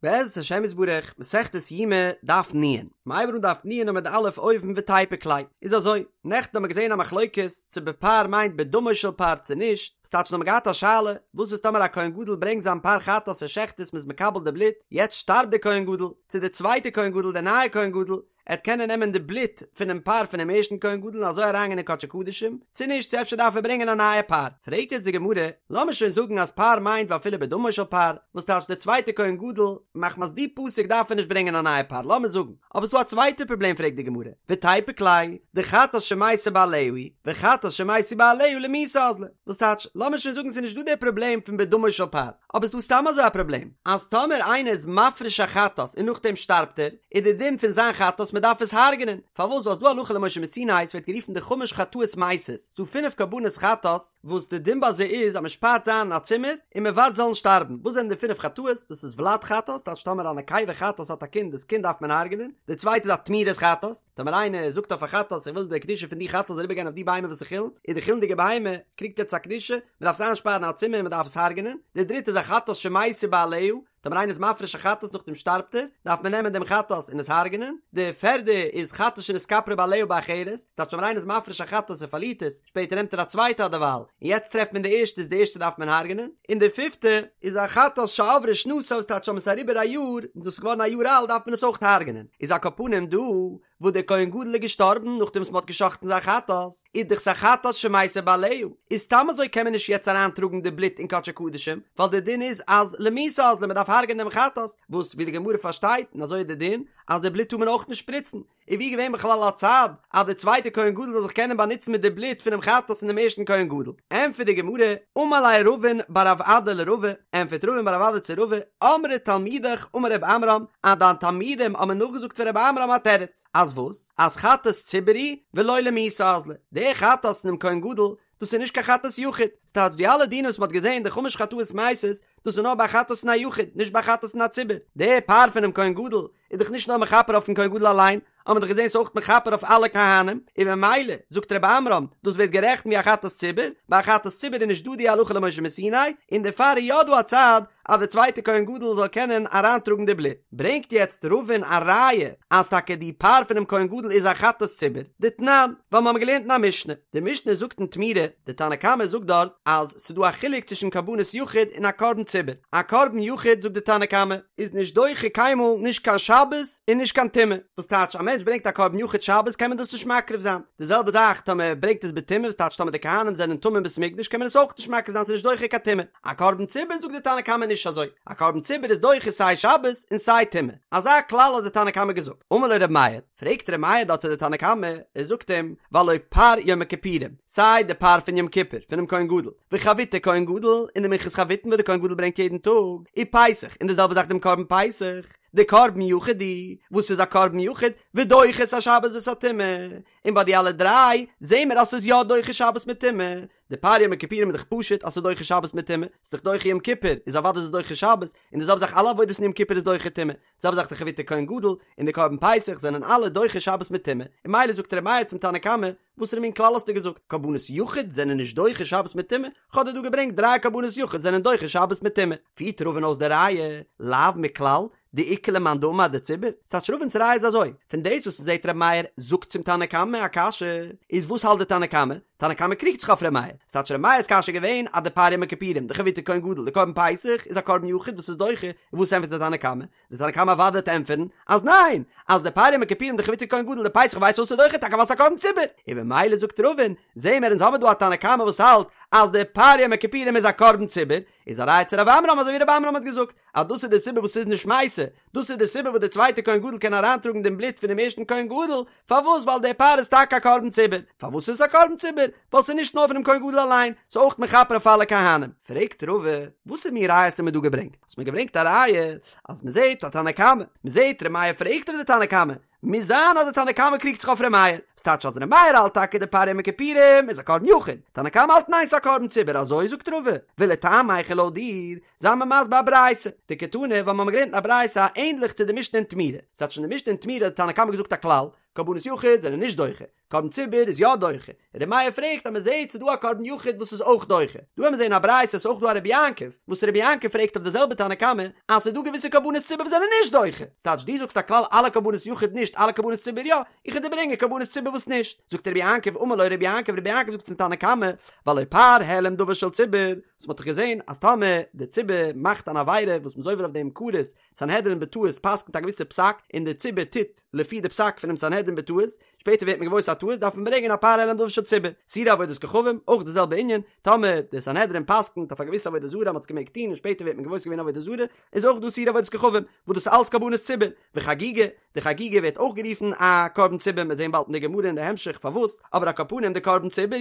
בעזרת השם יתברך, מסכת יומא, דף נ, מ'הייבט אן דף נ עמוד א' אויבן ותיפוק ליה, איז אזוי, נעכטן האבן מיר געזען א מחלוקת צו בפר מיינט בדמו של פר צו נישט, ס'טייטש האבן מיר געהאט א שאלה, וואס איז טאמער א כהן גדול ברענגט זיין פר חטאת ער שעכט עס מ'איז מקבל די בלוט, יעצט שטארבט דער כהן גדול, צו דער צווייטער כהן גדול דער נייער כהן גדול, ער וועט קענען נעמען די בלוט פונעם פר פונעם ערשטן כהן גדול און אזוי אריינגיין אין קדשי קדשים, צו נישט, צו אפשר דארף ער ברענגען א נייע פר. פרעגט יעצט די גמרא, לאמיר שוין זאגן אז פר מיינט ואפילו בדמו של פר, וואס טייטש דער צווייטער כהן גדול, מחמת די פסוק דארף ער נישט ברענגען א נייע פר, לאמיר זאגן, אבער ס'דא א צווייטע פראבלעם פרעגט די גמרא, ותיפוק ליה, דחטאת שמתה בעליה היא, וחטאת שמתו בעליה למיתה אזלא, וואס טייטש, לאמיר שוין זאגן ס'איז נישט דא דער פראבלעם פון בדמו של פר, אבער ס'דא סתם אזוי א פראבלעם, אז טאמער איינער איז מפריש א חטאת און נאכדעם שטארבט ער, איז די דין פון זיין חטאת מ'דארף עס הרג'נען, פארוואס ווייל ס'דא הלכה למשה מסיני, ס'ווערט גערופן די חמש חטאות מתות, ס'דא פינף קרבנות חטאת וואס די דין ביי זיי איז אז מ'שפארט זיי איין אין א צימער און מ'ווארט זאלן שטארבן, וואס זענען די פינף חטאות? דאס איז ולד חטאת, טייטש טאמער א נקבה חטאת האט א קינד, דאס קינד דארף מען הרג'נען, די צווייטע איז א תמורת חטאת, טאמער איינער זאגט אויף א חטאת איך וויל די קדושה פון די חטאת זאל אריבערגיין אויף די בהמה וואס איז חולין, איז די חולין'דיגע בהמה קריגט יעצט א קדושה, מען דארף עס איינשפארן אין א צימער און מען דארף עס הרג'נען, די דריטע איז א חטאת שמתו בעליה, טאמער איינער איז מפריש א חטאת נאכדעם שטארבט ער, דארף מען נעמען דעם חטאת און עס הרג'נען, די פערדע איז חטאת שנתכפרה בעליה באחרת, ס'טייטש טאמער איינער איז מפריש א חטאת און פארלירט עס, שפעטער נעמט ער א צווייטע אדערווייל, און יעצט טרעפט מען די ערשטע איז די ערשטע דארף מען הרג'נען, און די פיפטע איז א חטאת שעברה שנתה וואס טייטש טאמער ס'איז אריבער א יאר און דאס איז געווארן א יאר אלט דארף מען עס אויך הרג'נען, איז על כל פנים דא וואס דער כהן גדול איז געשטארבן נאכדעם וואס מ'האט גע'שחט'ן זיין חטאת, איז דאך ס'א חטאת שמתו בעליה, איז סתם אזוי קען מען נישט יעצט אריין טראגן די בלוט אין קדשי קדשים, ווייל די דין איז אז למיתה אזלא מ'דארף הרג'ענען דעם חטאת, וואס ווי די גמרא פארשטייט און אזוי איז די דין אז די בלוט טאר מען אויך נישט שפריצן, איז ווי געווען בכלל א צד אז דער צווייטער כהן גדול זאל זיך קענען באנוצן מיט די בלוט פונעם חטאת פון דעם ערשטן כהן גדול? ענטפערט די גמרא, אמר ליה רבין בר רב אדא לרבא, ענטפערט רבין בר רב אדא צו רבא, אמרי תלמידיך אמר רב עמרם, אז דיין תלמידים האבן נאכגעזאגט פון רב עמרם א תירוץ, אז וואס? אז חטאת ציבור היא ולא למיתה אזלא, דער חטאת פונעם כהן גדול, דאס איז נישט קיין חטאת יחיד, ס'טייטש די אלע דינים וואס מ'האט געזען די חמש חטאות מתות, דאס איז נאר ביי חטאת פון א יחיד, נישט ביי חטאת פון א ציבור, דער פר פונעם כהן גדול איז דאך נישט נאר מכפר אויפן כהן גדול אליין, האט מען דאך געזען ס'איז אויך מכפר אויף אלע כהנים, און ממילא, זאגט ר' עמרם, דאס ווערט גערעכנט ווי א חטאת ציבור, ביי א חטאת ציבור איז נישט דא די הלכה למשה מסיני, און דערפאר איז יא דא א צד אז דער צווייטער כהן גדול זאל קענען אריינטראגן די בלוט. ברענגט יעצט רבין א ראיה אז טאקע די פר פונעם כהן גדול איז א חטאת ציבור, דתנן, ווייל מ'האמיר געלערנט אין א משנה, די משנה זאגט אין תמורה, די תנא קמא זאגט דארט אז ס'איז דא א חילוק צווישן קרבנות יחיד און א קרבן ציבור, א קרבן יחיד זאגט די תנא קמא איז נישט דוחה קיינמאל נישט קיין שבת און נישט קיין טומאה, וואס טייטש א מענטש ברענגט א קרבן יחיד שבת קען מען דאס נישט מקריב זיין, די זעלבע זאך טאמער ער ברענגט עס בטומאה וואס טייטש טאמער די כהנים זענען טמא אין בית המקדש קען מען עס אויך נישט מקריב זיין ס'איז נישט דוחה קיין טומאה, א קרבן ציבור זאגט די תנא קמא נישט אזוי, א קרבן ציבור איז דוחה סיי שבת און סיי טומאה, אזא כלל האט די תנא קמא געזאגט, אמר לו ר' מאיר, פרעגט ר' מאיר דארט צו די תנא קמא, ער זאגט אים, והלא פר יום הכיפורים, סיי די פר פון יום כיפור פונעם כהן גדול, וחביתי כהן גדול, און די מנחת חביתין וואס די כהן גדול ברענגט יעדן טאג, ופסח, און די זעלבע זאך דעם קרבן פסח, דקרבן יחיד הוא, וואס איז א קרבן יחיד, ודוחה את השבת ואת הטומאה, און ביי די אלע דריי זעהן מיר אז ס'איז יא דוחה שבת מיט טומאה, די פר יום הכיפורים איז דאך פשוט אז ס'איז דוחה שבת מיט טומאה, ס'איז דאך דוחה יום כיפור, איז אוודאי איז עס דוחה שבת, און די זעלבע זאך אלע עבודות אין יום כיפור איז דוחה טומאה, די זעלבע זאך די חביתי כהן גדול און די קרבן פסח זענען אלע דוחה שבת מיט טומאה, און ממילא זאגט ר' מאיר צום תנא קמא, וואסערע מין כלל האסטו געזאגט? קרבנות יחיד זענען נישט דוחה שבת מיט טומאה? כ'האב דיר דא געברענגט דריי קרבנות יחיד זענען דוחה שבת מיט טומאה. פירט רבין אויס די ראיה, לאו מכלל, דאיכא למאן דאמר דציבור, ס'טייטש רבין'ס ראיה איז אזוי, פון דאס וואס מ'זעט ר' מאיר זאגט צום תנא קמא א קשיא, איז וואס האלט די תנא קמא? תנא קמא קריגט זיך אויף ר' מאיר, ס'טייטש ר' מאיר'ס קשיא איז געווען אז די פר יום הכיפורים, די חביתי כהן גדול, די קרבן פסח, איז א קרבן יחיד וואס איז דוחה, און וואס ענטפערט די תנא קמא? די תנא קמא אוודאי וועט ענטפערן אז ניין, אז די פר יום הכיפורים די חביתי כהן גדול די פסח ווייסט וואס איז דוחה טאקע ווייל ס'איז א קרבן ציבור, און ממילא זאגט רבין, זעהן מיר אונז האבן דא א תנא קמא וואס האלט אז די פר יום הכיפורים איז א קרבן ציבור, איז א ראיה צו רב עמרם אזוי ווי רב עמרם האט געזאגט אז דאס איז די סיבה וואס ס'איז נישט מתה, דאס איז די סיבה וואס דער צווייטער כהן גדול קען אריינטראגן דעם בלוט פונעם ערשטן כהן גדול, פארוואס ווייל דער פר איז טאקע א קרבן ציבור, פארוואס איז עס א קרבן ציבור? ווייל ס'איז נישט נאר פונעם כהן גדול אליין, ס'איז אויך מכפר אויף אלע כהנים. פרעגט רבא, וואסער מין ראיה האסטו מיר דא געברענגט? האסט מיר געברענגט א ראיה אז מ'זעט א תנא קמא, מ'זעט ר' מאיר פרעגט אויף די תנא קמא, מוז זיין אז די תנא קמא קריגט זיך אויף ר' מאיר, וואס טייטש אז ר' מאיר האלט טאקע די פר יום הכיפורים איז א קרבן יחיד, תנא קמא האלט ניין ס'איז א קרבן ציבור, אזוי זאגט רבא, ולטעמיך לויט דיר, זיי מיר מסביר א ברייתא, דקתני ווייל מ'האמיר געלערנט אין א ברייתא ענדליך צו די משנה אין תמורה, ס'טייטש אין די משנה אין תמורה האט די תנא קמא געזאגט א כלל, קרבנות יחיד זענען נישט דוחה, קרבן ציבור איז יא דוחה, ר' מאיר פרעגט אז מען זעט ס'איז דא א קרבן יחיד וואס איז אויך דוחה, דא וועט מען זען א ברייתא ס'איז אויך דא א רבי יעקב, וואס רבי יעקב פרעגט אויף די זעלבע תנא קמא אז ס'איז דא געוויסע קרבנות ציבור וואס זענען נישט דוחה, ס'טייטש דו זאגסט א כלל אלע קרבנות יחיד נישט אלע קרבנות ציבור יא, איך וועל דיר ברענגען קרבנות ציבור וואס נישט, זאגט רבי יעקב אמר לו רבי יעקב רבי יעקב זאגט צום תנא קמא והלא פר העלם דבר של ציבור, וואס מ'האט דאך געזען אז טאמער די ציבור מאכט אן עבירה וואס מ'איז עובר אויף דעם כרת, סנהדרין בטעות פסק'נט א געוויסע פסק און די ציבור טוט לפי די פסק פונעם סנהדרין בטעות, שפעטער ווערט מען געוואויר ס'איז א טעות דארף מען ברענגען א פר העלם דבר של ציבור. שעירי עבודת כוכבים, אויך די זעלבע ענין, טאמער די סנהדרין פסק'נט אויף א געוויסע עבודה זרה אז מ'האט עס געמעגט טון און שפעטער ווערט מען געוואויר ס'איז געווען עבודה זרה, איז אויך דא שעירי עבודת כוכבים, וואס דאס איז אלץ קרבנות ציבור. וחגיגה, די חגיגה ווערט אויך גערופן א קרבן ציבור, מ'וועט זען באלד אין די גמרא אין די המשך פארוואס, אבער על כל פנים די קרבן ציבור,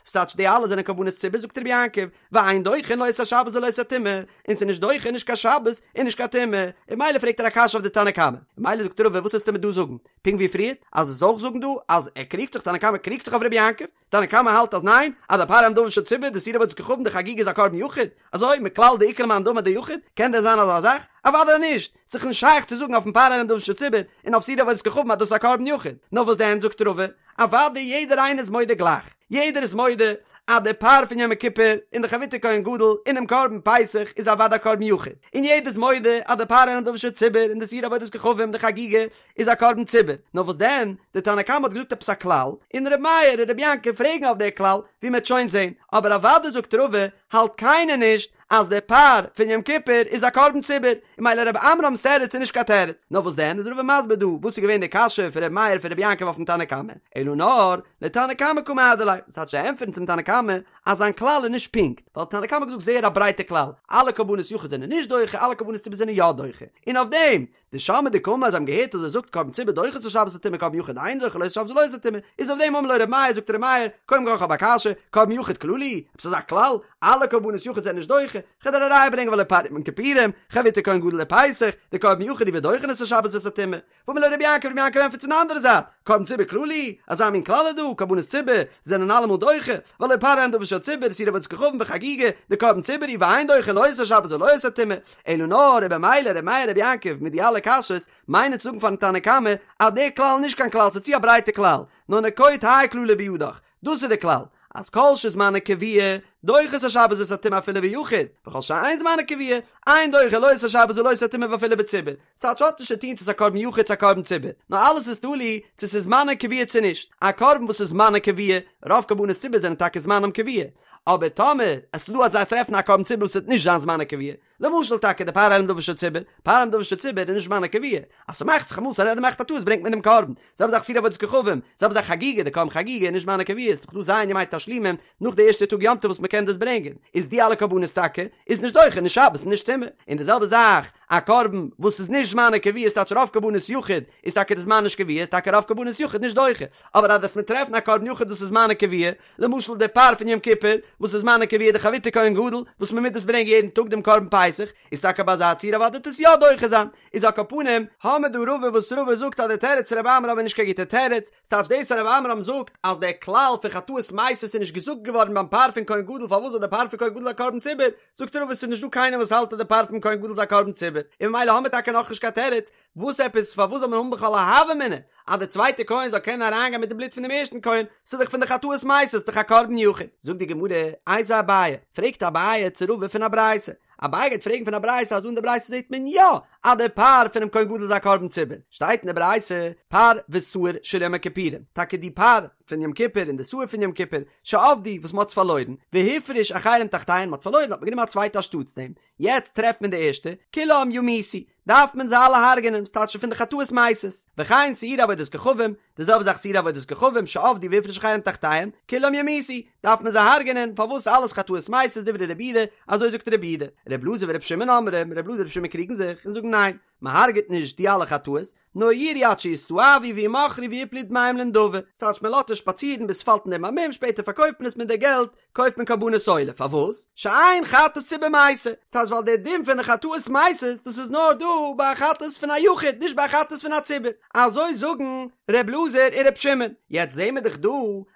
ס'טייטש די אלע זענען קרבנות ציבור זאגט רבי יעקב, ואין דוחין לא את השבת ולא את הטומאה, און ס'איז נישט דוחה נישט קיין שבת און נישט קיין טומאה, און ממילא פרעגט ער א קשיא אויף די תנא קמא, און ממילא זאגט רבא וואס וועסטו מיר דא זאגן? פונקט ווי פריערט, אז עס אויך זאגן דא אז ער קריגט זיך תנא קמא קריגט זיך אויף רבי יעקב, תנא קמא האלט אז ניין, אז די פר העלם דבר של ציבור, די שעירי עבודת כוכבים די חגיגה איז א קרבן יחיד, אזוי מכלל דאיכא למאן דאמר דיחיד, קען דען זיין אזא זאך? אוודאי נישט, ס'איז דאך נישט שייך צו זאגן אויפן פר העלם דבר של ציבור און אויף שעירי עבודת כוכבים אז דאס איז א קרבן יחיד, נאר וואס דען זאגט רבא, אוודאי יעדער איינער איז מודה גלייך, יעדער איז מודה אז די פר פון יום כיפור און די חביתי כהן גדול און דעם קרבן פסח איז אוודאי א קרבן יחיד, און יעדער איז מודה אז די פר העלם דבר של ציבור און די שעירי עבודת כוכבים די חגיגה איז א קרבן ציבור, נאר וואס דען, די תנא קמא האט געזאגט עפעס א כלל, און ר' מאיר און ר' יעקב פרעגן אויף דער כלל, ווי מ'עט שוין זען, אבער אוודאי זאגט רבא, האלט קיינער נישט אז די פר פון יום כיפור איז א קרבן ציבור, און ממילא ר' עמרם'ס תירוץ איז נישט קיין תירוץ, נאר וואס דען איז רבא מסביר דא וואס איז געווען די קשיא פון ר' מאיר פון ר' יעקב אויפן תנא קמא, אלא נאר, לתנא קמא קא מהדר ליה, דאס טייטש זיי ענטפערן צום תנא קמא אז זיין כלל איז נישט פונקט, ווייל תנא קמא האט געזאגט זייער א ברייטע כלל, אלע קרבנות יחיד זענען נישט דוחה, אלע קרבנות ציבור זענען יא דוחה, און אויף דעם דשמעיה דקאמר אז זיי האבן געהערט אז ער זאגט קרבן ציבור דוחה את השבת וטומאה קרבן יחיד אינו דוחה לא את השבת ולא את הטומאה איז אויף דעם אמר לו ר' מאיר זאגט ר' מאיר קודם כל איך האב א קשיא קרבן יחיד כללא הוא עפעס אזא כלל אלע קרבנות יחיד זענען נישט דוחה כ'וועל דיר א ראיה ברענגען והלא פר יום הכיפורים חביתי כהן גדול ופסח דקרבן יחיד הוא ודוחין את השבת ואת הטומאה ואמר לו רבי יעקב רבי יעקב ענטפערט פון די אנדערע זייט קרבן ציבור כללא הוא אזא מין כלל איז דא קרבנות ציבור זענען אלעמאל דוחה והלא פר העלם דבר של ציבור שעירי עבודת כוכבים וחגיגה דקרבן ציבור הוא ואין דוחין לא את השבת ולא את הטומאה אלא נאר און במילא ר' מאיר ר' יעקב מיט די אלע קשיות מיינען צו זאגן פארן תנא קמא אז דער כלל איז נישט קיין כלל ס'איז צו א ברייטע כלל נאר נקוט האי כללא בידך דאס איז די כלל אז כל שזמנו קבוע דוחה את השבת ואת הטומאה אפילו ביחיד וכל שאין זמנו קבוע אין דוחה לא את השבת ולא את הטומאה ואפילו בציבור ס'טייטש האט נישט צו טון צו ס'איז א קרבן יחיד צו א קרבן ציבור נאר אלעס איז תלוי צו ס'איז זמנו קבוע צו נישט א קרבן וואס איז זמנו קבוע רוב קרבנות ציבור זענען טאקע זמנם קבוע אבער טאמער עס איז דא אזא טרעפן א קרבן ציבור וואס וועט נישט זיין זמנו קבוע, למשל טאקע די פר העלם דבר של ציבור, פר העלם דבר של ציבור איז נישט זמנו קבוע, אז ס'מאכט זיך אמאל סנהדרין מאכט א טעות ברענגט מען דעם קרבן, זעלבע זאך שעירי עבודת כוכבים, זעלבע זאך חגיגה, די קרבן חגיגה איז נישט זמנו קבוע, ס'איז דאך דא ז' ימי תשלומים נאך די ערשטע טאג יום טוב וואס מ'קען דאס ברענגען, איז די אלע קרבנות טאקע איז נישט דוחה נישט שבת און נישט טומאה, און די זעלבע זאך א קרבן וואס איז נישט זמנו קבוע ס'טייטש רוב קרבנות יחיד איז טאקע די זמן נישט קבוע טאקע רוב קרבנות יחיד נישט דוחה, אבער אז וועסט מיר טרעפן א קרבן יחיד וואס איז זמנו קבוע למשל די פר פון יום כיפור וואס איז זמנו קבוע די חביתי כהן גדול וואס מען מוז דאס ברענגען יעדן טאג דעם קרבן פסח איז טאקע ביי אזא ציור אוודאי וועט עס יא דוחה זיין איז על כל פנים האמיר דא רבא וואס רבא זאגט אז די תירוץ פון רב עמרם איז נישט קיין גוטע תירוץ ס'טייטש דאס אז רב עמרם זאגט אז דער כלל פון חטאות מתות איז נישט געזאגט געווארן ביים פר פון כהן גדול פארוואס זאל די פר פון כהן גדול א קרבן ציבור זאגט רבא ס'איז נישט דא קיינער וואס האלט אז די פר פון כהן גדול איז א קרבן ציבור און ממילא האמיר טאקע נאכנישט קיין תירוץ וואס עפעס פארוואס זאל מען האבן בכלל א הוה אמינא אז דער צווייטער כהן זאל קענען אריינגיין מיט די בלוט פון דעם ערשטן כהן, ס'איז דאך פון די חטאות מתות, ס'איז דאך א קרבן יחיד. זאגט די גמרא, איתיביה אביי, פרעגט אביי צו רבא פון א ברייתא, אביי גייט פרעגן פון א ברייתא אז אין די ברייתא זעט מען יא אז דער פר פונעם כהן גדול איז א קרבן ציבור, שטייט אין די ברייתא, פר ושעיר של יום הכיפורים, טאקע די פר פון יום כיפור און די שעיר פון יום כיפור, שאבדו וואס מ'האט עס פארלוירן, והפריש אחרים תחתיהן, מ'האט פארלוירן האט מען גענומען א צווייטע אנשטאטס דעם, יעצט טרעפט מען די ערשטע, כולם יומתו, דארף מען זיי אלע הרג'נען, ס'טייטש פון די חטאות מתות. וכן שעירי עבודת כוכבים, די זעלבע זאך שעירי עבודת כוכבים, שאבדו והפריש אחרים תחתיהם, כולם יומתו, דארף מען זיי הרג'נען, פארוואס אלעס חטאות מתות דברי רבי יהודה, אזוי זאגט רבי יהודה. רבי אלעזר ורבי שמעון אומרים, רבי אלעזר און רבי שמעון קריגן זיך, און זאגן ניין, מען הרג'עט נישט די אלע חטאות, נאר ירעו עד שיסתאבו וימכרו ויפלו דמיהם לנדבה, ס'טייטש מען לאזט עס שפאצירן ביז ס'פאלט אין דעם א מום, שפעטער פארקויפט מען עס מיט די געלט, קויפט מען קרבנות עולה, פארוואס? שאין חטאת ציבור מתה, ס'טייטש ווייל דער דין פון די חטאות מתות דאס איז נאר דא ביי א חטאת פון א יחיד נישט ביי א חטאת פון א ציבור, אזוי זאגן ר' אלעזר און ר' שמעון, יעצט זעהן מיר דאך דא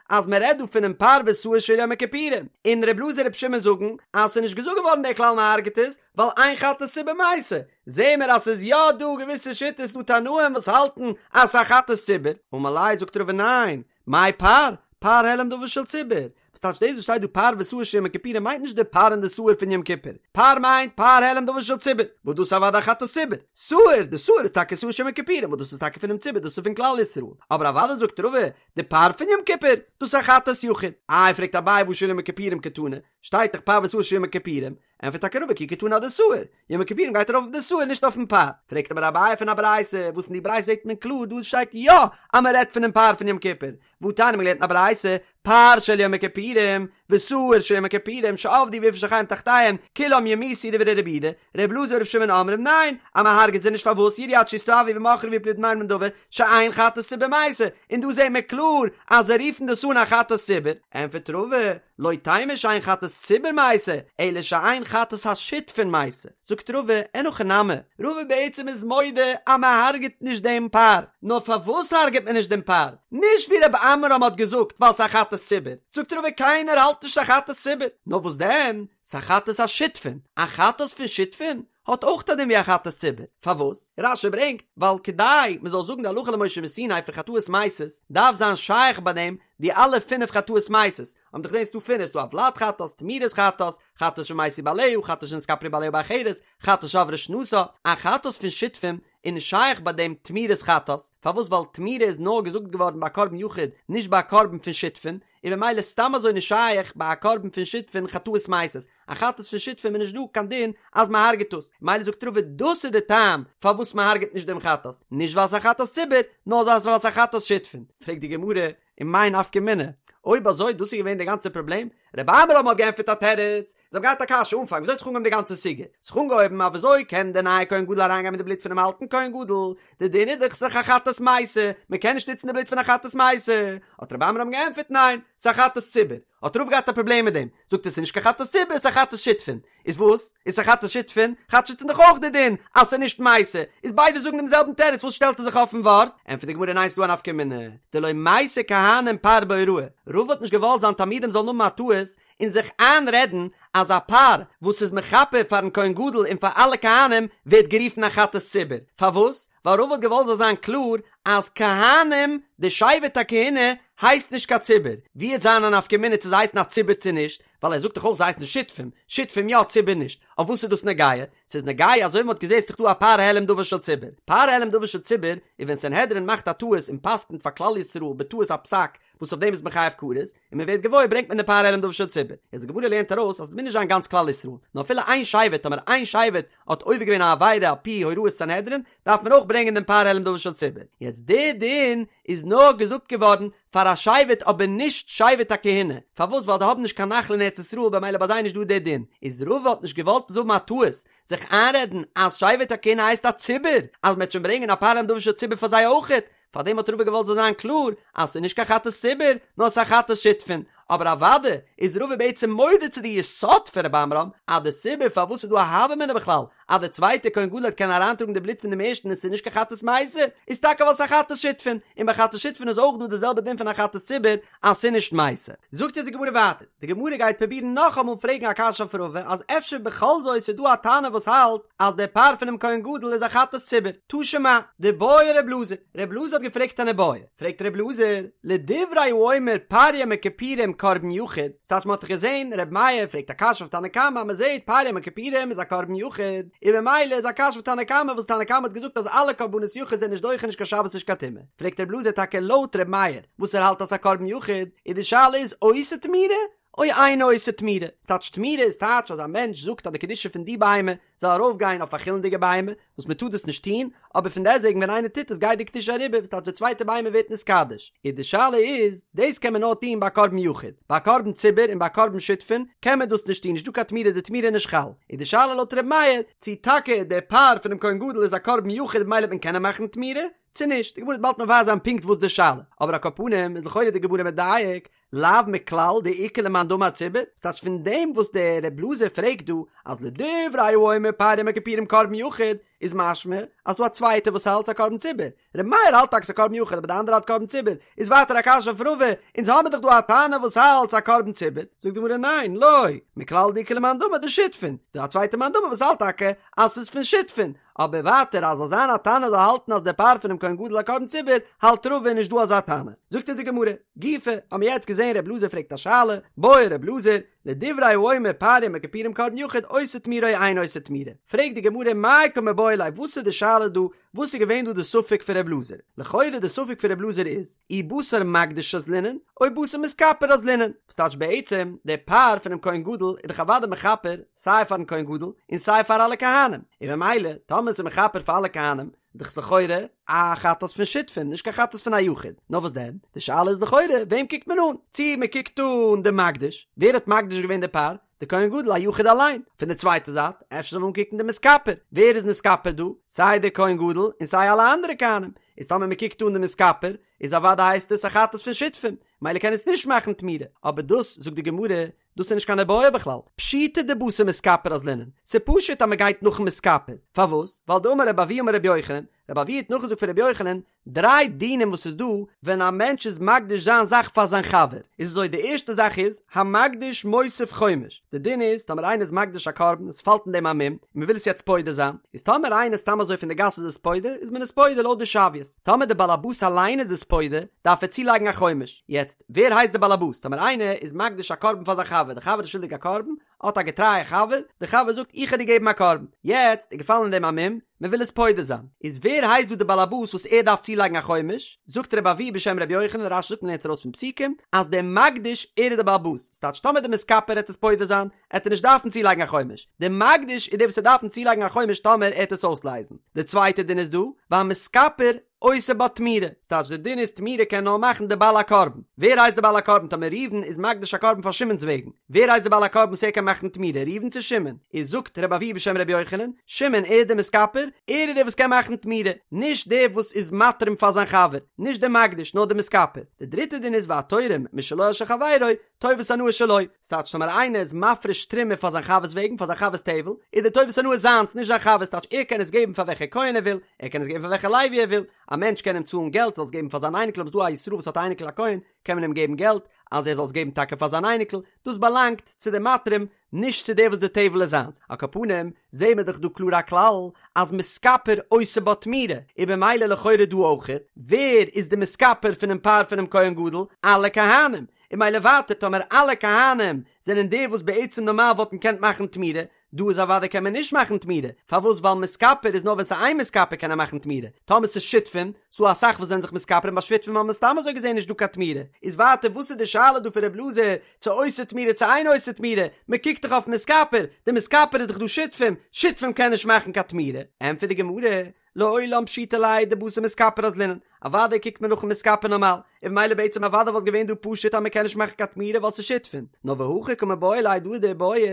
אז מען רעדט דא פונעם פר ושעיר של יום הכיפורים, און ר' אלעזר ר' שמעון זאגן אז ס'איז נישט געזאגט געווארן דער כלל מען הרג'ט עס, ווייל אין חטאת ציבור מתה, זעהן מיר אז ס'איז יא דא געוויסע שיטות דא תנאים וואס האלטן אז ס'איז א חטאת ציבור, אמר ליה זאגט רבא ניין, מאי פר? פר העלם דבר של ציבור, וואס טייטש דאס וואס שטייט דא פר ושעיר של יום הכיפורים מיינט נישט די פר און די שעיר פון יום כיפור, פר מיינט פר העלם דבר של ציבור, וואס דאס איז אוודאי א חטאת ציבור, שעיר, די שעיר איז טאקע שעיר של יום הכיפורים וואס דאס איז טאקע פונעם ציבור דאס איז פון כלל ישראל, אבער אוודאי זאגט רבא די פר פון יום כיפור, דאס איז א חטאת יחיד. איי פרעגט אביי והא של יום הכיפורים קתני, שטייט דאך פר ושעיר של יום הכיפורים, ענטפערט טאקע רבא כי קתני אדשעיר, יום הכיפורים גייט ארויף אויף די שעיר נישט אויפן פר, פרעגט אבער אביי פון א ברייתא, וואס אין די ברייתא זעט מען קלאר דא שטייט יא אז מען רעדט פונעם פר פון יום כיפור, והתניא מ'האט געלערנט אין א ברייתא, פר של יום הכיפורים, ושעיר של יום הכיפורים שאבדו והפרישו אחיהם תחתיהם, כולם יומתו דברי רבי יהודה, ר' אלעזר ור' שמעון אומרים ניין, אז מען הרג'ט זיי נישט פארוואס ירעו עד שיסתאבו ומכרו ויפלו דמיהן בנדבה, שאין חטאת ציבור מתה, און דא זעהן מיר קלאר אז זיי רופן דאס אן א חטאת ציבור, ענטפערט רבא, לא תימא שאין חטאת ציבור מתה, אלא שאין חטאת השותפין מתה. זאגט רבא, אין הכי נמי, רבא בעצם איז מודה אז מען הרג'ט נישט דעם פר, נאר פארוואס הרג'ט מען נישט דעם פר? נישט ווי רב עמרם האט געזאגט ווייל ס'איז א חטאת ציבור, זאגט רבא קיינער האלט נישט ס'איז א חטאת ציבור, נאר וואס דען? ס'איז א חטאת השותפין, א חטאת פון שותפין האט אויך א דין ווי א חטאת ציבור, פארוואס? רש"י ברענגט, ווייל כדי מען זאל זאגן די הלכה למשה מסיני פון חטאות מתות, דארף זיין שייך ביי דעם די אלע פינף חטאות מתות, האבן דאך געזען ס'דא פינף, ס'דא הולד חטאת, תמורת חטאת, חטאת שמתו בעליה, חטאת שנתכפרו בעליה באחרת, חטאת שעברה שנתה, א חטאת פון שותפים איז נישט שייך ביי דעם תמורת חטאת, פארוואס ווייל תמורה איז נאר געזאגט געווארן ביי א קרבן יחיד נישט ביי א קרבן פון שותפים, און במילא סתם אזוי נישט שייך ביי א קרבן פון שותפים חטאות מתות, א חטאת פון שותפים איז נישט דא קיין דין אז מען הרג'ט עס, ממילא זאגט רבא דאס איז די טעם פארוואס מען הרג'ט נישט דעם חטאת, נישט ווייל ס'איז א חטאת ציבור, נאר ווייל ס'איז א חטאת שותפים. פרעגט די גמרא, ומאי נפקא מינה? אויב אזוי דאס איז געווען די גאנצע פראבלעם? רב עמרם האט געענטפערט א תירוץ, זיי האבן געהאט א קשיא אנפאנג וויאזוי האט זיך אנגעהויבן די גאנצע סוגיא? זיך אנגעהויבן אז וויאזוי קען די נייע כהן גדול אריינגיין מיט די בלוט פונעם אלטן כהן גדול, די דין איז דאך ס'איז דאך א חטאת מתה, מען קען נישט נוצן די בלוט פון א חטאת מתה, האט רב עמרם געענטפערט ניין, ס'איז א חטאת ציבור, האט רבא געהאט א פראבלעם מיט דעם, זאגט ער ס'איז נישט קיין חטאת ציבור ס'איז א חטאת שותפין, איז וואס? איז ס'א חטאת שותפין? חטאת שותפין דאך אויך די דין אז ס'איז נישט מתה, איז ביידע זאגן דעם זעלבן תירוץ וואס שטעלט ער זיך אויפן ווארט? ענטפערט די גמרא ניין ס'דא א נפקא מינה, דלא מייתי כהנים פר בהוראה, רבא האט נישט געוואלט זיין תלמידים זאלן האבן א טעות און זיך איינרעדן אז א פר וואס איז מכפר פארן כהן גדול און פאר אלע כהנים ווערט גערופן א חטאת ציבור, פארוואס? ווייל רבא האט געוואלט זאל זיין קלאר אז כהנים, די שבט הכהונה, הייסט נישט קיין ציבור, ווי וועט זיין א נפקא מינה צו זיי הייסן א ציבור צו נישט, ווייל ער זאגט דאך אויך זיי הייסן שותפים, שותפים יא ציבור נישט, אויף וואס איז דאס נוגע? ס'איז נוגע אזוי ווי מ'האט געזעהן ס'איז דאך דא א פר העלם דבר של ציבור, פר העלם דבר של ציבור איז ווען סנהדרין מאכט א טעות און פסק'נט פאר כלל ישראל בטעות א פסק וואס אויף דעם איז מען חייב כרת, און מ'ווערט געוואויר ברענגט מען די פר העלם דבר של ציבור, יעצט די גמרא לערנט ארויס אז עס מוז נישט זיין גאנץ כלל ישראל, נאר אפילו איין שבט, טאמער איין שבט האט עובר געווען א עבירה על פי הוראת סנהדרין, דארף מען אויך ברענגען דעם פר העלם דבר של ציבור. יעצט די דין איז נאר געזאגט געווארן פאר א שבט אבער נישט שבט הכהונה, פארוואס ווייל זיי האבן נישט קיין נחלה אין ארץ ישראל במילא ביי זיי איז נישט דא די דין, איז רבא האט נישט געוואלט זיי האבן א טעות זיך איינרעדן אז שבט הכהונה הייסט א ציבור אז מען וועט שוין ברענגען א פר העלם דבר של ציבור פאר זיי אויכעט, פארדעם האט רבא געוואלט זאל זיין קלאר אז ס'איז נישט קיין חטאת ציבור נאר ס'איז א חטאת שותפין, אבער אוודאי איז רבא בעצם מודה צו די יסוד פון רב עמרם אז די סיבה פארוואס ס'איז דא א הוה אמינא בכלל אז די צווייטע כהן גדול קען אריינטראגן די בלוט פון דעם ערשטן און ס'איז נישט קיין חטאת מתה איז טאקע ווייל ס'איז א חטאת שותפין, און ביי חטאת שותפין איז אויך דא די זעלבע דין פון א חטאת ציבור אז ס'איז נישט מתה. זאגט יעצט די גמרא ווייטער, די גמרא גייט פרובירן נאכאמאל פרעגן א קשיא אויף רבא אז אפשר בכל זאת איז דא א תנא וואס האלט אז דער פר פונעם כהן גדול איז א חטאת ציבור, תא שמע, דבעי ר' אלעזר, ר' אלעזר האט געפרעגט אן איבעיא, פרעגט ר' אלעזר, לדברי האומר פר יום הכיפורים קרבן יחיד, ס'טייטש מ'האט דאך געזען ר' מאיר פרעגט א קשיא אויף תנא קמא אז מ'זעט פר יום הכיפורים איז א קרבן יחיד, און ממילא איז א קשיא אויף תנא קמא וואס תנא קמא האט געזאגט אז אלע קרבנות יחיד זענען נישט דוחה נישט קיין שבת נישט קיין טומאה, פרעגט ר' אלעזר טאקע לויט ר' מאיר וואס ער האלט אז ס'איז א קרבן יחיד, איז די שאלה איז עושה תמורה או אינו עושה תמורה, ס'טייטש תמורה איז טייטש אז א מענטש זאגט אז די קדושה פון די בהמה זאל ארויפגיין אויף א חולין'דיגע בהמה, וואס מען טאר דאס נישט טון, אבער פון דעסטוועגן ווען איינער טוט עס גייט די קדושה אריבער, וואס טייטש די צווייטע בהמה ווערט נתקדש, איז די שאלה איז, דאס קען מען נאר טון ביי א קרבן יחיד, ביי א קרבן ציבור און ביי א קרבן שותפין קען מען דאס נישט טון, נישטא קיין תמורה די תמורה איז נישט חל, איז די שאלה לויט ר' מאיר, צו טאקע דער פר פונעם כהן גדול איז א קרבן יחיד ממילא וועט מען קענען מאכן תמורה, צו נישט, די גמרא וועט באלד מבאר זיין פונקט וואס די שאלה, אבער על כל פנים איז לכאורה די גמרא מדייק, לאו מכלל דאיכא למאן דאמר ציבור, ס'טייטש פון דעם וואס דער ר' אלעזר פרעגט דא אז לדברי האומר פר יום הכיפורים קרבן יחיד, איז משמע אז ס'דא א צווייטער וואס האלט ס'א קרבן ציבור, ר' מאיר האלט טאקע ס'א קרבן יחיד אבער די אנדערע האלט קרבן ציבור, איז ווייטער א קשיא אויף רבא, אונז האמיר דאך דא א תנא וואס האלט ס'א קרבן ציבור, זאגט די גמרא ניין, לא, מכלל דאיכא למאן דאמר דשותפין, ס'דא א צווייטע מאן דאמר וואס האלט טאקע אז ס'איז פון שותפין, אבער ווייטער אז זאל זיין א תנא זאל האלטן אז די פר פונעם כהן גדול א קרבן ציבור, האלט רבא נישט דא אזא תנא. זאגט אונז די גמרא, גופא, האמיר יעצט געזען ר' אלעזר פרעגט א שאלה, בעי ר' אלעזר, לדברי האומר פר יום הכפורים קרבן יחיד עושה תמורה או אין עושה תמורה, פרעגט די גמרא מאי קא מיבעיא ליה וואס איז די שאלה דא, וואס איז געווען דא די ספק פון ר' אלעזר? לכאורה די ספק פון ר' אלעזר איז, אי בתר מקדיש אזלינן, או בתר מתכפר אזלינן, וואס טייטש בעצם, דער פר פונעם כהן גדול איז דאך אוודאי מכפר סיי פארן כהן גדול און סיי פאר אלע כהנים, און ממילא טאמער ס'איז מכפר פאר אלע כהנים, איז דאך עס לכאורה א חטאת פון שותפים, נישט קיין חטאת פון א יחיד. נאר וואס דען? די שאלה איז לכאורה, וועם קוקט מען אן? צי מען קוקט אן די מקדיש, ווער האט מקדיש געווען די פר? די כהן גדול א יחיד אליין. פון די צווייטע זייט, אפשר זאל מען אנקוקן די מתכפר, ווער איז נתכפר דא? סיי די כהן גדול און סיי אלע אנדערע כהנים. איז טאמער מען קוקט אן די מתכפר, איז אוודאי הייסט עס א חטאת פון שותפים, ממילא קען עס נישט מאכן תמורה. אבער דאס, זאגט די גמרא, דאס איז נישט קיין איבעיא בכלל, פשיטא דבתר מתכפר אזלינן, ס'איז פשוט אז מ'גייט נאכן מתכפר, פארוואס? ווייל דאמר רבי אבהו אמר רבי יוחנן, רבי אבהו האט נאכגעזאגט פון רבי יוחנן, דריי דינים וואס איז דא ווען א מענטש איז מקדיש זיין זאך פאר זיין חבר, איז אזוי די ערשטע זאך איז, המקדיש מוסיף חומש, די דין איז טאמער איינער איז מקדיש א קרבן, עס פאלט אין דעם א מום, און מ'וויל עס יעצט פודה זיין, איז טאמער איינער סתם אזוי פון די גאס איז עס פודה, איז מען עס פודה לויט די שוויות, טאמער די בעל הבית אליין איז עס פודה, דארף ער צולייגן א חומש, יעצט, ווער הייסט די באלעבאס? טאמער איינער איז מקדיש א קרבן פאר זיין חבר, די חבר איז שולדיג א קרבן, האט א געטרייע חבר, די חבר זאגט איך וועל דיר געבן א קרבן, יעצט איז געפאלן אין דעם א מום, מען וויל עס פודה זיין, איז ווער הייסט דא די באלעבאס וואס ער דארף צולייגן א חומש? זאגט רבי אבהו בשם רבי יוחנן, רש"י זאגט מען לערנט עס ארויס פון פסוקים, אז דער מקדיש ער איז די באלעבאס, ס'טייטש טאמער די מתכפר העט עס פודה זיין, עט ער נישט דארפן צולייגן א חומש, די מקדיש איז דער וואס עט דארפן צולייגן א חומש טאמער ער עט עס אויסלייזן. די צווייטע דין איז דא, והמתכפר עושה בה תמורה, ס'טייטש די דין איז תמורה קען נאר מאכן די בעל הקרבן, ווער הייסט די בעל הקרבן טאמער ראובן איז מקדיש א קרבן פאר שמעון'ס וועגן, ווער הייסט די בעל הקרבן וואס ער קען מאכן תמורה ראובן צו שמעון, איז זאגט רבי אבהו בשם רבי יוחנן, שמעון ער איז די מתכפר, ער איז דער וואס קען מאכן תמורה, נישט דער וואס איז מתרים פאר זיין חבר, נישט די מקדיש נאר די מתכפר, די דריטע דין איז והתורם משלו על של חברו, טובת הנאה שלו, ס'טייטש טאמער איינער איז מפריש תרומה פאר זיין חבר'ס וועגן, פאר זיין חבר'ס טבל, איז די טובת הנאה זיינס, נישט זיין חבר'ס, ס'טייטש ער קען עס געבן פאר וועלכע כהן ער וויל, ער קען עס געבן פאר וועלכע לוי ער וויל, א מענטש קען אים צאלן געלט זאל עס געבן פאר זיין אייניקל, אויב איז דא א ישראל וואס האט א אייניקל א כהן, קען מען אים געבן געלט אז ער זאל עס געבן טאקע פאר זיין אייניקל, דאס באלאנגט צו די מתרים, נישט צו דער וואס די טבל איז זיינס, על כל פנים, זעהן מיר דאך דא קלאר א כלל, אז מתכפר עושה בה תמורה, און במילא לכאורה דא אויכעט, ווער איז די מתכפר פונעם פר פונעם כהן גדול? אלע כהנים! און ממילא ווייטער טאמער אלע כהנים זענען די וואס בעצם נארמאל וואלטן געקענט מאכן תמורה, דא איז אוודאי קען מען נישט מאכן תמורה, פארוואס ווייל מתכפר איז נאר ווען ס'איז איין מתכפר קען ער מאכן תמורה, טאמער ס'איז שותפים, ס'דא אסאך וואס זענען זיך מתכפר און ביי שותפים האט מען סתם אזוי געזען נישט דא קיין תמורה, איז ווייטער וואס איז די שאלה דא פון ר' אלעזר צו עושה תמורה צו אין עושה תמורה, מען קוקט דאך אויף מתכפר, די מתכפר איז דאך דא שותפים, שותפים קענען נישט מאכן קיין תמורה, ענטפערט די גמרא, לעולם פשיטא ליה דבתר מתכפר אזלינן, אוודאי קוקט מען נאכן מתכפר נארמאל, און ממילא בעצם אוודאי וואלט געווען דא פשוט אז מען קען נישט מאכן קיין תמורה ווייל ס'איז שותפים, נאר והכא קא מיבעיא ליה דא די איבעיא,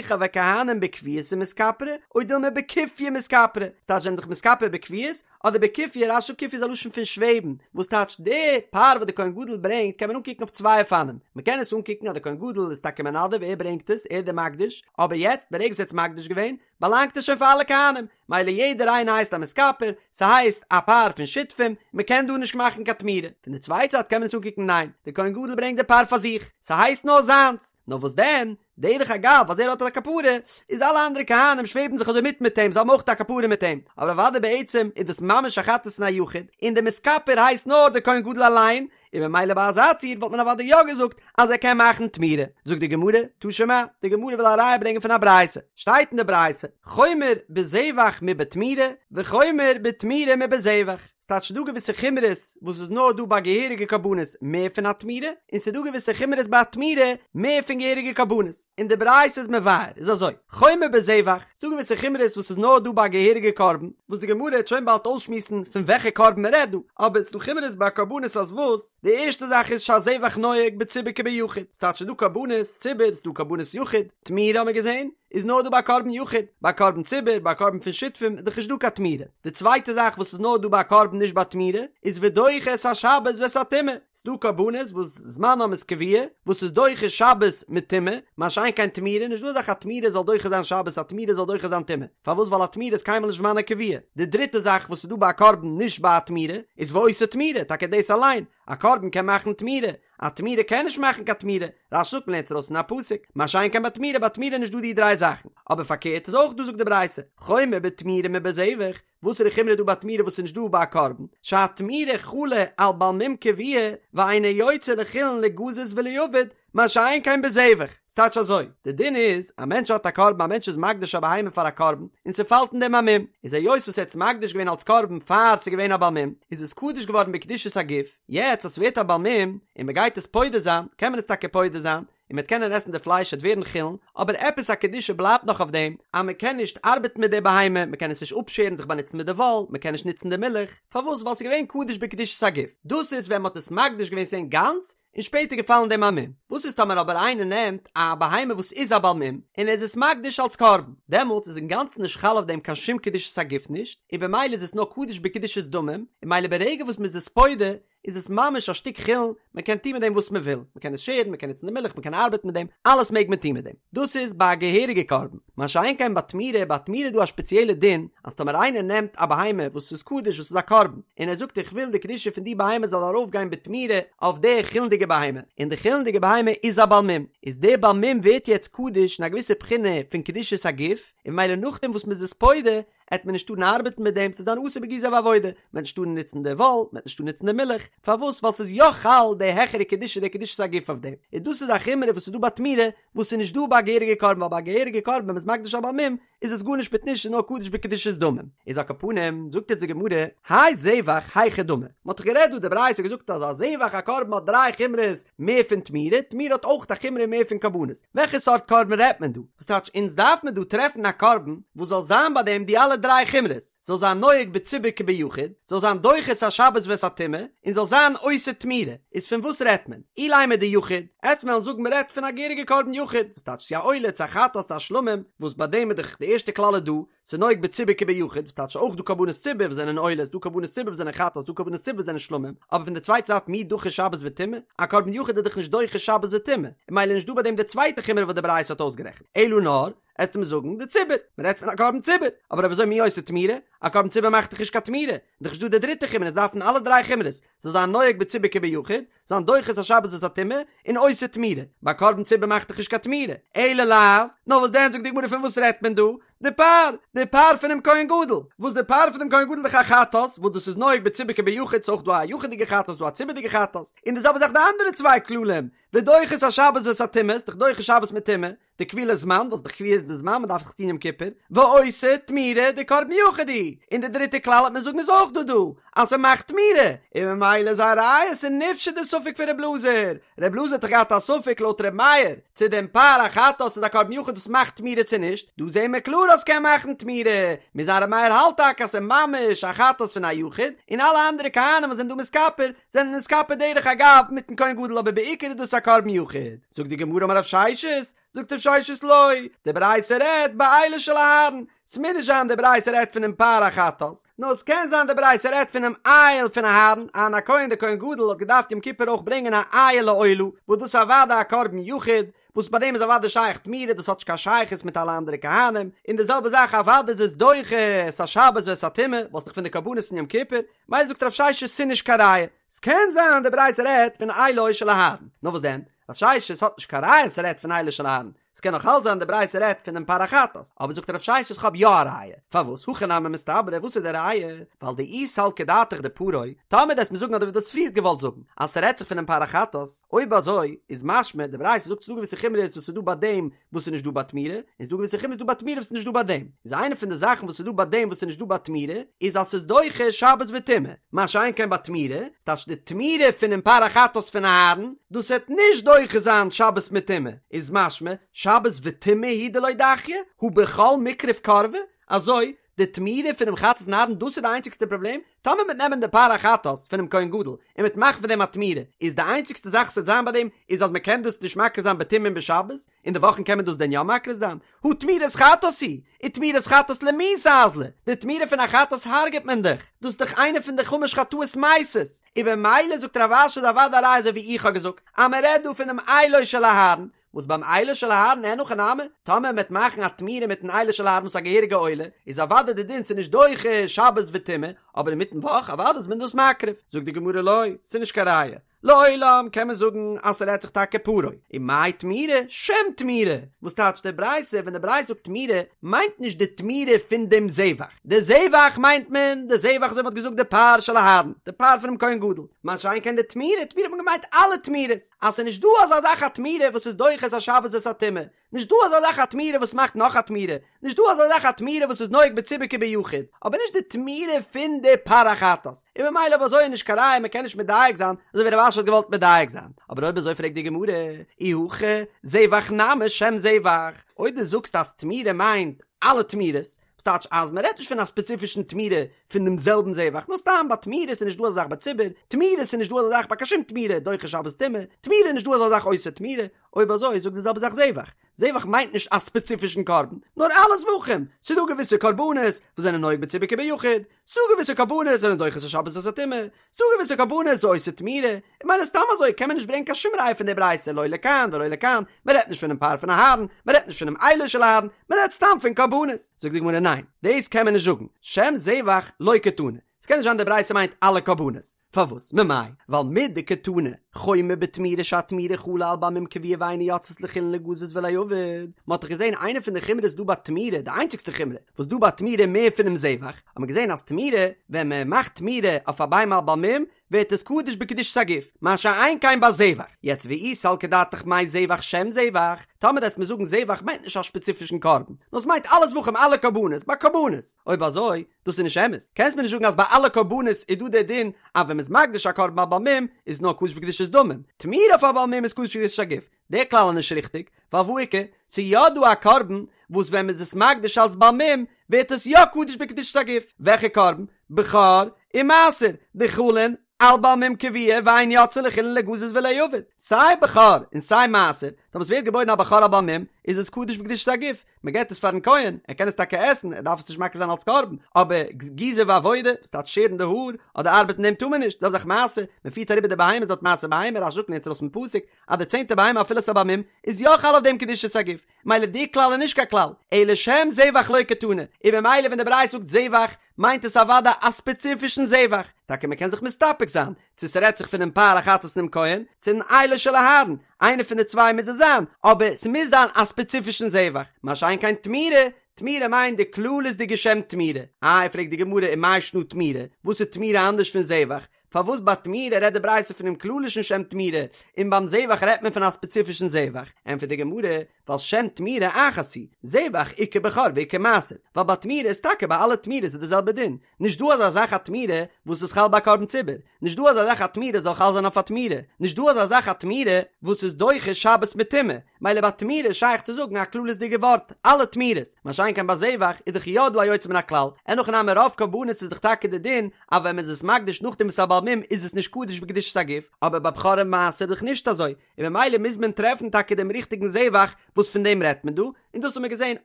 אחד הכהנים בקביעותא מתכפרי, או דילמא בכופיא מתכפרי, ס'טייטש זענען זיך מתכפר בקביעות, אדער בכופיא, רש"י כופיא איז א לשון פון שוועבן, וואס טייטש די פר וואס די כהן גדול ברענגט קען מען אנקוקן אויף צוויי אופנים, מען קען עס אנקוקן אז די כהן גדול איז טאקע מנדב ער ברענגט עס, ער איז די מקדיש, אבער יעצט ברגע וואס ער האט עס מקדיש געווען, באלאנגט עס שוין פאר אלע כהנים, מילא יעדער איינער הייסט א מתכפר, ס'הייסט א פר פון שותפים, מ'קען דא נישט מאכן קיין תמורה. פון די צווייטע זייט קען מען עס אנקוקן ניין, די כהן גדול ברענגט די פר פאר זיך, ס'הייסט נאר זיינס, נאר וואס דען, דרך אגב אז ער האט א כפרה, איז אלע אנדערע כהנים שוועבן זיך אזוי מיט מיט אים, זיי האבן אויך א כפרה מיט אים, אבער אוודאי בעצם איז דאס ממש א חטאת פון א יחיד, און די מתכפר הייסט נאר די כהן גדול אליין, און ממילא ביי אזא ציור וואלט מען אוודאי יא געזאגט אז ער קען מאכן תמורה. זאגט די גמרא, תא שמע, די גמרא וויל א ראיה ברענגען פון א ברייתא, שטייט אין די ברייתא, חומר בזבח מבתמורה, וחומר בתמורה מבזבח, ס'טייטש ס'דא געוויסע חומרות וואס איז נאר דא ביי געהעריגע קרבנות מער פון א תמורה, און ס'דא געוויסע חומרות ביי א תמורה מער פון געהעריגע קרבנות, און די ברייתא איז מבאר, איז אזוי, חומר בזבח, ס'דא געוויסע חומרות וואס איז נאר דא ביי א געהעריגע קרבן, וואס די גמרא העט שוין באלד אויסשמועסן פון וועלכע קרבן מען רעדט דא, אבער ס'דא חומרות ביי קרבנות אז וואס, די ערשטע זאך איז שהזבח נוהג בציבור כביחיד, ס'טייטש ס'דא קרבנות ציבור, ס'דא קרבנות יחיד, תמורה האט מען געזען, איז נאר דא ביי קרבן יחיד, ביי קרבן ציבור, ביי קרבן פון שותפים איז דאך נישט דא קיין תמורה. די צווייטע זאך וואס איז נאר דא ביי קרבן נישט ביי תמורה, איז ודוחה את השבת ואת הטומאה, ס'דא קרבנות וואס זמנם איז קבוע, וואס איז דוחה שבת מיט טומאה, מה שאין כן תמורה, נישט דא אזאך א תמורה זאל דוחה זיין שבת א תמורה זאל דוחה זיין טומאה, פארוואס ווייל א תמורה איז קיינמאל נישט זמנה קבוע. די דריטע זאך וואס איז דא ביי א קרבן נישט ביי א תמורה, איז ועושה תמורה, טאקע דאס אליין, א קרבן קען מאכן תמורה, א תמורה קען נישט מאכן קיין תמורה, רש"י זאגט מ'לערנט עס ארויס פון א פסוק, מה שאין כן ביי תמורה, ביי תמורה איז נישט דא די דריי זאכן, אבער פארקערט איז אויך דא זאגט די ברייתא, חומר בתמורה מבזבח, וואסערע חומרא איז דא ביי תמורה וואס איז נישט דא ביי א קרבן, שהתמורה חלה על בעל מום קבוע ואינו יוצא לחולין ליגזז וליעבד, מה שאין כן בזבח, ס'טייטש אזוי, די דין איז, א מענטש האט א קרבן, א מענטש איז מקדיש א בהמה פאר א קרבן, און ס'פאלט אין דעם א מום, איז היות וואס ער האט עס מקדיש געווען אלס קרבן פאר ס'איז געווען א בעל מום, איז עס קדוש געווארן בקדושת הגוף, יעצט אז ס'ווערט א בעל מום, און מ'גייט עס פודה זיין, קען מען עס טאקע פודה זיין, און מ'וועט קענען עסן די פלייש ס'וועט ווערן חולין, אבער עפעס א קדושה בלייבט נאך אויף דעם, אז מ'קען נישט ארבעטן מיט די בהמה, מ'קען עס נישט אפשערן זיך באנוצן מיט די וואל, מ'קען נישט נוצן די מילך, פארוואס? ווייל ס'איז געווען קדוש בקדושת הגוף, דאס איז ווען מ'האט עס מקדיש געווען ס'איז געווען גאנץ, און שפעטער געפאלן אין דעם א מום. וואס איז טאמער אבער איינער נעמט א בהמה וואס איז א בעל מום און ער איז עס מקדיש אלס קרבן, דעמאלטס איז אינגאנצן נישט חל אויף דעם קיין שום קדושת הגוף נישט, און במילא איז עס נאר קדוש בקדושת דמים, און במילא ברגע וואס מען איז עס פודה איז עס ממש א שטיק חולין, מען קען טון מיט דעם וואס מען וויל, מען קען עס שערן, מען קען נוצן די מילך, מען קען ארבעטן מיט דעם, אלעס מעג מען טון מיט דעם. דאס איז ביי א געהעריגע קרבן. מה שאין כן ביי תמורה, ביי תמורה איז דא א שפעציעלע דין, אז טאמער איינער נעמט א בהמה וואס איז קדוש וואס איז א קרבן, און ער זאגט איך וויל די קדושה פון די בהמה זאל ארויפגיין בתמורה אויף די חולין'דיגע בהמה, און די חולין'דיגע בהמה איז א בעל מום, איז די בעל מום ווערט יעצט קדוש אין א געוויסע בחינה פון קדושת הגוף, און ממילא נאכדעם וואס מ'איז עס פודה, עט מען נישט טארן ארבעטן מיט דעם, ס'וועט זיין אסור בגיזה ועבודה, מ'וועט נישט טארן נוצן די וואל, מ'וועט נישט טארן נוצן די מילך, פארוואס? ווייל ס'איז יא חל די העכערע קדושה די קדושת הגוף אויף דעם, און דאס איז א חומרא וואס איז דא ביי תמורה, וואס איז נישט דא ביי א געהעריגע קרבן ווייל ביי א געהעריגע קרבן ווען מ'איז מקדיש א בעל מום איז עס גארנישט מיט נישט ס'איז נאר קדוש בקדושת דמים איז על כל פנים זאגט יעצט די גמרא האי זבח היכי דמי מ'האט דאך גערעדט דא די ברייתא האט געזאגט אז א זבח א קרבן האט דריי חומרות מער פון תמורה תמורה האט אויך א חומרא מער פון קרבנות וועלכע סארט קרבן רעדט מען דא וואס טייטש אונז דארף מען דא טרעפן א קרבן וואס זאל זיין ביי דעם די אלע דריי חומרות זאל זיין נוהג בציבור כביחיד, זאל זיין דוחה את השבת ואת הטומאה, און זאל זיין עושה תמורה, איז פון וואס רעדט מען? אילימא דיחיד, עט מען וועלן זאגן מען רעדט פון א געהעריגע קרבן יחיד, וואס טייטש צו א עולה צו א חטאת צו א שלמים, וואס ביי דעם איז דאך די ערשטע כלל איז דא, ס'נוהג בציבור כביחיד, וואס טייטש אויך דא קרבנות ציבור וואס זענען עולות, דא קרבנות ציבור וואס זענען חטאת, דא קרבנות ציבור וואס זענען שלמים, אבער פון די צווייטע זייט מי דחי שבת וטומאה, א קרבן יחיד איז דאך נישט דוחה שבת וטומאה, און ממילא נישט דא ביי דעם די צווייטע חומרא וואס די ברייתא האט אויסגערעכנט, אלא נאר, עסטו מיר זאגן די ציבור, מען רעדט פון א קרבן ציבור, אבער אויב אזוי מי עושה תמורה? א קרבן ציבור מאכט דאך נישט קיין תמורה, איז דאך נישט דא די דריטע חומרא, עס דארפן אלע דריי חומרות, זאל זיין נוהג בציבור כביחיד, זיין דוחה את השבת ואת הטומאה, און עושה תמורה, ביי קרבן ציבור מאכט דאך נישט קיין תמורה, אלא לאו, נאר וואס דען זאגט די גמרא פון וואס רעדט מען דא? די פר, די פר פונעם כהן גדול, וואס די פר פונעם כהן גדול איז דאך א חטאת, וואס דאס איז נוהג בציבור כביחיד, ס'איז אויך דא א יחיד'יגע חטאת, דא א ציבור'דיגע חטאת, און די זעלבע זאך די אנדערע צוויי כללים, ודוחה את השבת ואת הטומאה, איז דאך דוחה שבת מיט טומאה, דקביע ליה זמן, וואס דאך קבוע די זמן, מען דארף דאך טון יום כיפור, ועושה תמורה דקרבן יחיד הוא, און די דריטע כלל וועט מען זאגן איז אויך דא דא, אז ס'מאכט תמורה, און ממילא איז א ראיה ס'נפשט די ספק פון ר' אלעזר, ר' אלעזר האט דאך געהאט א ספק לויט ר' מאיר, צו דעם פר החטאת איז א קרבן יחיד וואס מאכט תמורה צו נישט, דא זעהן מיר קלאר אז ס'קען מאכן תמורה, מוז זיין ר' מאיר האלט טאקע אז ס'איז ממש א חטאת פון א יחיד, און אלע אנדערע כהנים וואס זענען דא מתכפר, זענען נתכפר דרך אגב מיטן כהן גדול אבער בעיקר איז דאס א קרבן יחיד. זאגט די גמרא אמר רב ששת, זאגט רב ששת לא, די ברייתא רעדט באילו של אהרן, ס'מוז נישט זיין די ברייתא רעדט פונעם פר החטאת, נאר ס'קען זיין די ברייתא רעדט פונעם איל פון אהרן, אהרן הכהן דער כהן גדול האט געדארפט יום כיפור אויך ברענגען א איל לעולה, וואס דאס איז אוודאי א קרבן יחיד, וואס ביי דעם איז אוודאי שייך תמורה, דאס האט נישט קיין שייכות מיט אלע אנדערע כהנים, און די זעלבע זאך אוודאי איז עס דוחה את השבת ואת הטומאה, ווייל ס'דאך פון די קרבנות אין יום כיפור, מילא זאגט רב ששת ס'נישט קיין ראיה, ס'קען זיין די ברייתא רעדט פון אילו של אהרן, נאר וואס דען, רב ששת האט נישט קיין ראיה ס'רעדט פון אילו של אהרן, ס'קען נאך אלץ זיין די ברייתא רעדט פונעם פר החטאת, אבער זאגט רב ששת כ'האב יא א ראיה, פארוואס הכי נמי מסתברא וואס איז די ראיה, ווייל דאי סלקא דעתך דפרו, טאמער דו עסט מיר זאגן אזוי ווי דו האסט פריערט געוואלט זאגן אז ס'רעדט זיך פונעם פר החטאת, אויב אזוי איז משמע די ברייתא זאגט ס'דא געוויסע חומרות וואס איז דא ביי דעם וואס איז נישט דא ביי תמורה, און ס'דא געוויסע חומרות דא ביי תמורה וואס איז נישט דא ביי דעם, איז איינע פון די זאכן וואס איז דא ביי דעם וואס איז נישט דא ביי תמורה, איז אז ס'איז דוחה שבת וטומאה, מה שאין כן ביי תמורה, ס'טייטש די תמורה פונעם פר החטאת פון אהרן, דאס העט נישט דוחה זיין שבת מיט טומאה, איז משמע, שבת וטומאה הוא דלא דחיא, הא בחול מיקרב קרבי, אזוי? די תמורה פונעם חטאת פון אהרן דאס איז די איינציגסטע פראבלעם? טאמער מ'וועט נעמען די פר החטאת פונעם כהן גדול און מ'וועט מאכן פון דעם א תמורה, איז די איינציגסטע זאך וואס וועט זיין ביי דעם איז אז מ'קען דאס נישט מקריב זיין בטומאה און בשבת, אין די וואכן קען מען דאס דען יא מקריב זיין? הא תמורת חטאת היא, ותמורת חטאת למיתה אזלא, די תמורה פון א חטאת הרג'ט מען דאך, דאס איז דאך איינע פון די חמש חטאות מתות, און במילא זאגט רב אשי איז אוודאי א ראיה אזוי ווי איך האב געזאגט אז מ'רעדט דא פונעם אילו של אהרן, וואס ביים אילו של אהרן אין הכי נמי, טאמער מען וועט מאכן א תמורה מיטן אילו של אהרן וואס איז א געהעריגע עולה, איז אוודאי די דין ס'איז נישט דוחה שבת וטומאה, אבער אינמיטן וואך אוודאי איז מען דאס מקריב. זאגט די גמרא לא, ס'איז נישט קיין ראיה. לעולם קען מען זאגן אז ס'רעדט זיך טאקע פרו. ומאי תמורה? שם תמורה! וואס טייטש די ברייתא? ווען די ברייתא זאגט תמורה, מיינט נישט די תמורה פון דעם זבח. די זבח מיינט מען די זבח אזוי ווי מ'האט געזאגט די פר של אהרן, די פר פונעם כהן גדול. מה שאין כן די תמורה, תמורה האט מען געמיינט אלע תמורות. אז ס'איז נישט דא אזא זאך א תמורה וואס איז דוחה את השבת ואת הטומאה, נישט דא אזא זאך א תמורה וואס מאכט נאך א תמורה, נישט דא אזא זאך א תמורה וואס איז נוהג בציבור כביחיד, אבער נישט די תמורה פון די פר החטאת, און ממילא אויב אזוי איז נישט קיין ראיה מ'קען נישט מדייק זיין אזוי ווי רב אשי האט געוואלט מדייק זיין, אבער אויב אזוי פרעגט די גמרא, אי הכי זבח נמי שם זבח, אויב דו זאגסט אז תמורה מיינט אלע תמורות, ס'טייטש אז מ'רעדט נישט פון א ספעציפישן תמורה פון דעם זעלבן זבח, נאר סתם ביי תמורות איז נישט דא אזא זאך בציבור, תמורות איז נישט דא אזא זאך ביי קיין שום תמורה, דוחה שבת טומאה, תמורה איז נישט דא אזא זאך עושה תמורה, אויב אזוי זאג די זעלבע זאך זבח, זבח מיינט נישט א ספעציפישן קרבן, נאר אלע זבחים, ס'איז דא געוויסע קרבנות וואס זענען נוהג בציבור כביחיד, ס'דא געוויסע קרבנות זענען דוחה את השבת ואת הטומאה, ס'דא געוויסע קרבנות איז עושה תמורה, און ממילא סתם אזוי קען מען נישט ברענגען קיין שום ראיה פון די ברייתא לא לכאן ולא לכאן, מען רעדט נישט פונעם פר פון אהרן, מען רעדט נישט פונעם אילו של אהרן, מען רעדט סתם פון קרבנות. זאגט די גמרא ניין, דאס קען מען נישט זאגן, שם זבח לא קתני, ס'קען נישט זיין די ברייתא מיינט אלע קרבנות, פארוואס? ממאי? ווייל מדקתני חומר בתמורה שהתמורה חלה על בעל מום קבוע ואינה יוצאת לחולין ליגזז וליעבד, מ'האט דאך געזען איינע פון די חומרות דא ביי תמורה, די איינציגסטע חומרא וואס דא ביי תמורה מער פונעם זבח, האט מען געזען אז תמורה, ווען מען מאכט תמורה אויף א בהמה א בעל מום, ווערט עס קדוש בקדושת הגוף, מה שאין כן ביי זבח. יעצט ואי סלקא דעתך מאי זבח שם זבח, טאמער וועסט מיר זאגן זבח מיינט נישט א ספעציפישן קרבן, נאר עס מיינט אלע זבחים אלע קרבנות, ביי קרבנות, אויב אזוי, דאס איז נישט אמת, קענסט מיר נישט זאגן אז ביי אלע קרבנות איז דא דער דין אז ווען מ'איז מקדיש א קרבן א בעל מום איז נאר קדוש בקדושת דמים, תמורה אויף א בעל מום איז קדוש בקדושת הגוף, דער כלל איז נישט ריכטיג, ווייל והא איכא, ס'איז יא דא א קרבן וואס ווען מ'איז עס מקדיש אלס בעל מום ווערט עס יא קדוש בקדושת הגוף, וועלכע קרבן? בכור און מעשר, דחלין על בעל מום קבוע ואין יוצאין לחולין ליגזז וליעבד, סיי בכור און סיי מעשר, טאמער ס'ווערט געבוירן א בכור א בעל מום איז עס קדוש בקדושת הגוף, מען געבט עס פארן כהן, ער קען עס טאקע עסן, ער דארף עס נישט מקריב זיין אלס קרבן, אבער גיזה ועבודה, וואס טייטש שערן די האר, אדער ארבעטן דעם טאר מען נישט, זעלבע זאך מעשר, מען פירט אריבער די בהמה דארט מעשר בהמה, רש"י זאגט מ'לערנט ארויס פון פסוק, אז די צענטע בהמה אפילו ס'איז א בעל מום, איז יא חל אויף דעם קדושת הגוף, מילא די כלל איז נישט קיין כלל, אלא שם זבח לא קתני, און ממילא ווען די ברייתא זאגט זבח, מיינט עס אוודאי א ספעציפישן זבח, טאקע מען קען זיך מסתפק זיין, צו ס'רעדט זיך פונעם פר החטאת פונעם כהן, צו דעם אילו של אהרן, איינע פון די צוויי מוז עס זיין, אבער ס'מוז זיין א ספעציפישן זבח, מה שאין כן תמורה, תמורה מיינט די כללית'דיגע שם תמורה, איי פרעגט די גמרא ומאי שנא תמורה, וואס איז תמורה אנדערש פון זבח, פארוואס ביי תמורה רעדט די ברייתא פונעם כללישן שם תמורה, און ביים זבח רעדט מען פון א ספעציפישן זבח, ענטפערט די גמרא, ווייל שם תמורה אחת היא, זבח איכא בכור ואיכא מעשר, ווייל ביי תמורה איז טאקע ביי אלע תמורות איז די זעלבע דין, נישט דא אזא זאך א תמורה וואס איז חל ביי קרבן ציבור, נישט דא אזא זאך א תמורה זאל חל זיין אויף א תמורה, נישט דא אזא זאך א תמורה וואס איז דוחה שבת מיט טומאה, מילא ביי תמורה איז שייך צו זאגן א כללית'דיגע ווארט אלע תמורות, מה שאין כן ביי זבח איז דאך יא דא א יוצא מן הכלל, אין הכי נמי רוב קרבנות איז דאך טאקע די דין אז ווען מען איז עס מקדיש נאכדעם וואס ס'איז א בעל מום איז עס נישט קדוש בקדושת הגוף, אבער ביי בכור און מעשר איז דאך נישט אזוי, און ממילא מוז מען טרעפן טאקע דעם ריכטיגן זבח וואס פון דעם רעדט מען דא, און דאס האט מען געזען,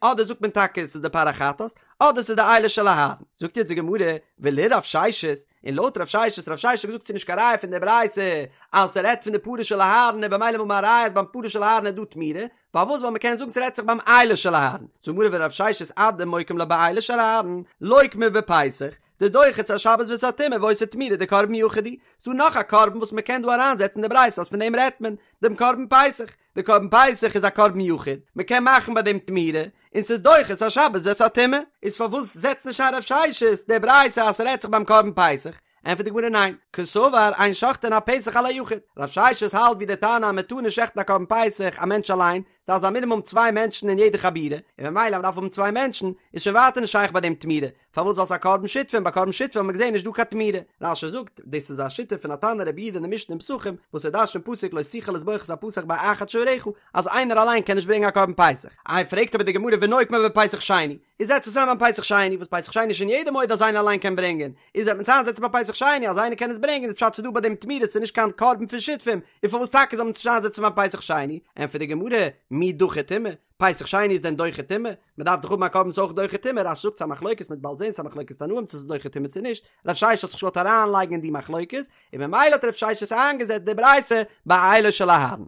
אדער זאגט מען טאקע עס איז די פר החטאת, אדער עס איז די אילו של אהרן. זאגט יעצט די גמרא, ולרב ששת, און לויט רב ששת, רב ששת האט געזאגט ס'איז נישט קיין ראיה פון די ברייתא אז ס'רעדט פון די פרה של אהרן און במילא האבן מיר א ראיה אז ביים פרה של אהרן איז דא תמורה, פארוואס ווייל מ'קען זאגן ס'רעדט זיך ביים אילו של אהרן. זאגט די גמרא ולרב ששת אדמוקים לה באילו של אהרן, לוקמה בפסח, דדוחה את השבת ואת הטומאה ועושה תמורה דקרבן יחיד הוא. ס'דא נאך א קרבן וואס מ'קען דא אריינזעצן די ברייתא אז פון דעם רעדט מען, דעם קרבן פסח. די קרבן פסח איז א קרבן יחיד, מ'קען מאכן ביי דעם תמורה, און ס'איז דוחה את השבת ואת הטומאה. איז פארוואס זעצט נישט איין רב ששת די ברייתא אז ס'רעדט זיך ביים קרבן פסח? ענטפערט די גמרא ניין, קסבר אין שוחטין הפסח על היחיד, רב ששת האלט ווי די תנא אז מ'טאר נישט שעכטן א קרבן פסח א מענטש אליין, ס'דארף זיין מינימום צוויי מענטשן אין יעדע חבורה, און ממילא אז מ'דארף האבן צוויי מענטשן, איז שוין ווייטער נישט שייך ביי דעם תמורה, פארוואס ווייל ס'איז א קרבן שותפים, ביי קרבן שותפים האט מען געזען נישט דא קיין תמורה. רש"י זאגט, דאס איז א שיטה פון א תנא רבי יהודה אין די משנה אין פסחים, וואס ער דרש'נט פסוק לא תוכל לזבוח את הפסח באחד שעריך, אז איינער אליין קען נישט ברענגען א קרבן פסח. איי פרעגט אבער די גמרא ונוקמה בפסח שני, איז זעץ עס איין ביים פסח שני, וואס פסח שני איז שוין יעדער מודה אז איינער אליין קען ברענגען, איז וועט מען עס איינזעצן ביי פסח שני אז איינער קען עס ברענגען איז פשט ס'איז דא ביי דעם תמורה ס'איז נישט קיין קרבן פון שותפים, און פארוואס טאקע זאל מען עס נישט איינזעצן ביים פסח שני? ענטפערט די גמרא, מי דחי טומאה? פסח שני איז דען דוחה טומאה? מען דארף דאך האבן א קרבן וואס איז אויך דוחה טומאה, רש"י זאגט ס'איז א מחלוקת מ'וועט באלד זען ס'איז א מחלוקת תנאים צו ס'איז דוחה טומאה צו נישט, רב ששת האט זיך נישט געוואלט אריינלייגן אין די מחלוקת, און ממילא האט רב ששת איינגעזעצט די ברייתא ביי אילו של אהרן.